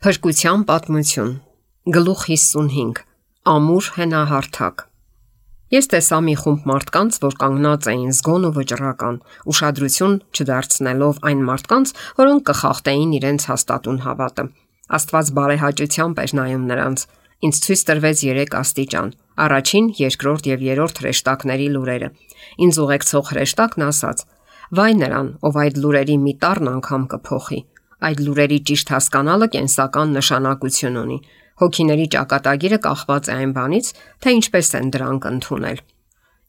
Փրկության պատմություն։ Գլուխ 55. Ամուր հենահարթակ։ Ես տեսա մի խումբ մարդկանց, որ կանգնած էին զգոն ու վճռական, ուշադրություն չդարձնելով այն մարդկանց, որոնք կխախտեին իրենց հաստատուն հավատը։ Աստված բարեհաճությամբ էր նայում նրանց։ Ինձ ցույց տրվեց 3 աստիճան՝ առաջին, երկրորդ եւ երրորդ հրեշտակների լուրերը։ Ինձ ուղեկցող հրեշտակն ասաց. «Վայ նրան, ով այդ լուրերի մի տառն անգամ կփոխի»։ Այդ լուրերի ճիշտ հասկանալը կենսական նշանակություն ունի։ Հոգիների ճակատագիրը կախված է այն բանից, թե ինչպես են դրանք ընդունել։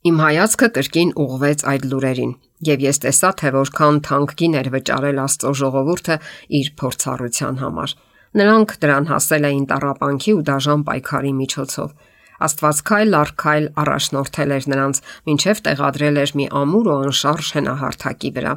Իմ հայացքը կրկին ուղղվեց այդ լուրերին, եւ ես տեսա, թե որքան թանկ գին էր վճարել Աստծո ժողովուրդը իր փորձառության համար։ Նրանք դրան հասել էին տառապանքի ու դաժան պայքարի միջոցով։ Աստված քայլ առ քայլ առաջնորդել էր նրանց, մինչև տեղադրել էր մի ամուր ու անշարժ հենահարթակի վրա։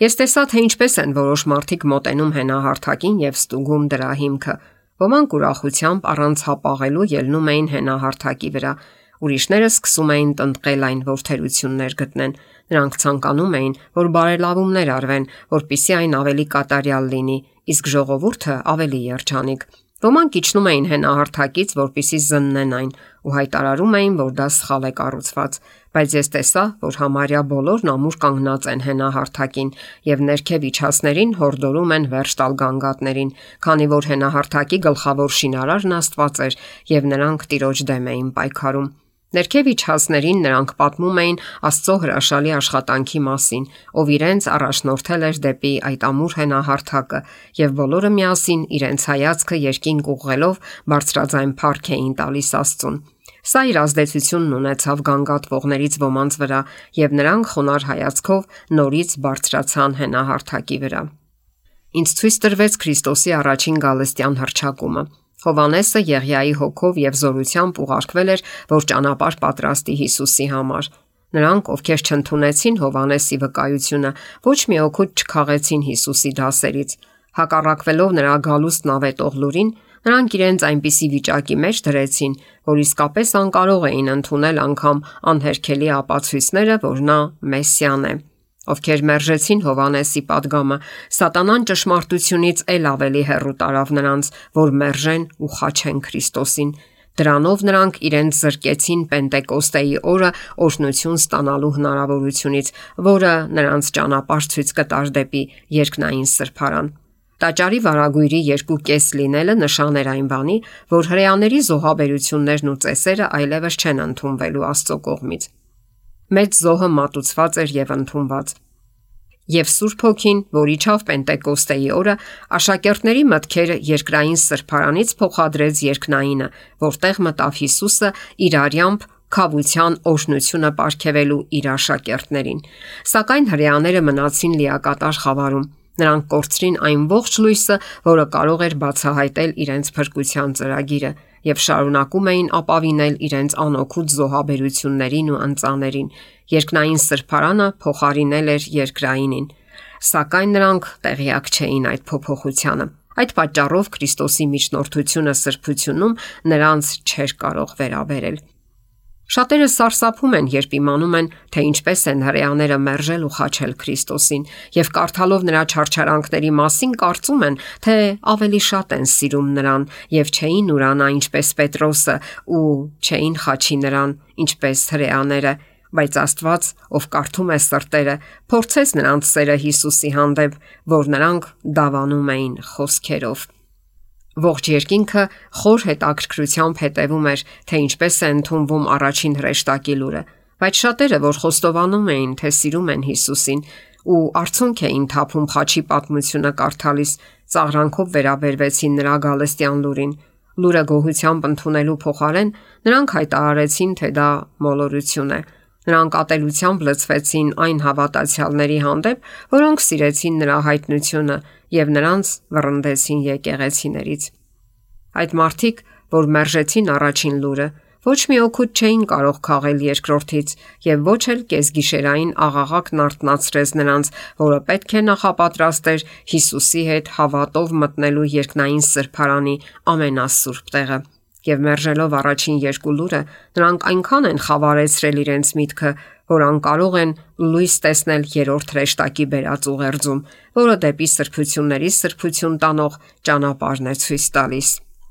Ես տեսա, թե ինչպես են որոշ մարդիկ մոտենում հենահարթակին եւ ստուգում դրա հիմքը։ Ոմանք ուրախությամբ առանց հապաղելու ելնում էին հենահարթակի վրա, ուրիշները սկսում էին տնտղել այն, որ թերություններ գտնեն։ Նրանք ցանկանում էին, որ բարելավումներ արվեն, որպեսզի այն ավելի կատարյալ լինի, իսկ ժողովուրդը ավելի երջանիկ։ Ոմանք իջնում էին հենահարթակից, որպեսզի զննեն այն, ու հայտարարում էին, որ դա սխալ է կառուցված, բայց ես տեսա, որ համարյա բոլորն ամուր կանգնած են հենահարթակին եւ ներքև իջածներին հորդորում են վերջ տալ գանգատներին, քանի որ հենահարթակի գլխավոր շինարարն Աստված էր եւ նրանք Տիրոջ դեմ էին պայքարում։ Ներքև իջածներին նրանք պատմում էին Աստծո հրաշալի աշխատանքի մասին, ով իրենց առաջնորդել էր դեպի այդ ամուր հենահարթակը, եւ բոլորը միասին իրենց հայացքը երկինք ուղղելով բարձրաձայն փառք էին տալիս Աստծուն։ Սա իր ազդեցությունն ունեցավ գանգատվողներից ոմանց վրա, եւ նրանք խոնարհ հայացքով նորից բարձրացան հենահարթակի վրա։ Ինձ ցույց տրվեց Քրիստոսի առաջին գալստյան հռչակումը։ Հովհաննեսը Եղիայի հոգով եւ զորությամբ ուղարկվել էր, որ ճանապարհ պատրաստի Հիսուսի համար։ Նրանք, ովքեր չընդունեցին Հովհաննեսի վկայությունը, ոչ մի օգուտ չքաղեցին Հիսուսի դասերից։ Հակառակվելով նրա գալուստն ավետող լուրին, նրանք իրենց այնպիսի վիճակի մեջ դրեցին, որ իսկապես անկարող էին ընդունել անգամ անհերքելի ապացույցները, որ նա Մեսիան է։ Ովքեր մերժեցին Հովհաննեսի պատգամը, Սատանան ճշմարտությունից էլ ավելի հեռու տարավ նրանց, որ մերժեն ու խաչեն Քրիստոսին։ Դրանով նրանք իրենց զրկեցին Պենտեկոստեի օրը օրհնություն ստանալու հնարավորությունից, որը նրանց ճանապարհ ցույց կտար դեպի երկնային սրբարան։ Տաճարի վարագույրի 2 լինելը նշան էր այն բանի, որ հրեաների զոհաբերություններն ու ծեսերը այլևս չեն ընդունվելու Աստծո կողմից։ Մեծ զոհը մատուցված էր եւ ընդունված։ Եվ Սուրբ Հոգին, որ իջավ Պենտեկոստեի օրը, աշակերտների մտքերը երկրային սրբարանից փոխադրեց երկնայինը, որտեղ մտավ Հիսուսը իր արյամբ քավության օրհնությունը պարգևելու իր աշակերտներին։ Սակայն հրեաները մնացին լիակատար խավարում։ Նրանք կորցրին այն ողջ լույսը, որը կարող էր բացահայտել իրենց փրկության ծրագիրը, եւ շարունակում էին ապավինել իրենց անօգուտ զոհաբերություններին ու ընծաներին։ Երկնային սրբարանը փոխարինել էր երկրայինին, սակայն նրանք տեղյակ չէին այդ փոփոխությանը։ Այդ պատճառով Քրիստոսի միջնորդությունը սրբությունում նրանց չէր կարող վերաբերել։ Շատերը սարսափում են, երբ իմանում են, թե ինչպես են հրեաները մերժել ու խաչել Քրիստոսին, եւ կարդալով նրա չարչարանքների մասին կարծում են, թե ավելի շատ են սիրում նրան եւ չէին ուրանա ինչպես Պետրոսը ու չէին խաչի նրան ինչպես հրեաները, բայց Աստված, ով կարդում է սրտերը, փորձեց նրանց սերը Հիսուսի հանդեպ, որ նրանք դավանում էին խոսքերով։ Ողջ երկինքը խոր հետաքրքրությամբ հետևում էր, թե ինչպես է ընդունվում առաջին հրեշտակի լուրը, բայց շատերը, որ խոստովանում էին, թե սիրում են Հիսուսին ու արցունք էին թափում խաչի պատմությունը կարդալիս, ծաղրանքով վերաբերվեցին նրա գալստյան լուրին։ Լուրը գոհությամբ ընդունելու փոխարեն նրանք հայտարարեցին, թե դա մոլորություն է։ Նրանք ատելությամբ լցվեցին այն հավատացյալների հանդեպ, որոնք սիրեցին նրա հայտնությունը եւ նրանց վռնդեցին եկեղեցիներից։ Այդ մարդիկ, որ մերժեցին առաջին լուրը, ոչ մի օգուտ չէին կարող քաղել երկրորդից եւ ոչ էլ կեսգիշերային աղաղակն արթնացրեց նրանց, որը պետք է նախապատրաստեր Հիսուսի հետ հավատով մտնելու երկնային սրբարանի ամենասուրբ տեղը։ Եվ մերժելով առաջին 2 լուրը, նրանք այնքան են խավարեցրել իրենց միտքը, որ անկարող են լույս տեսնել երրորդ հրեշտակի բերած ուղերձում, որը դեպի սրբությունների սրբություն տանող ճանապարհն է ցույց տալիս։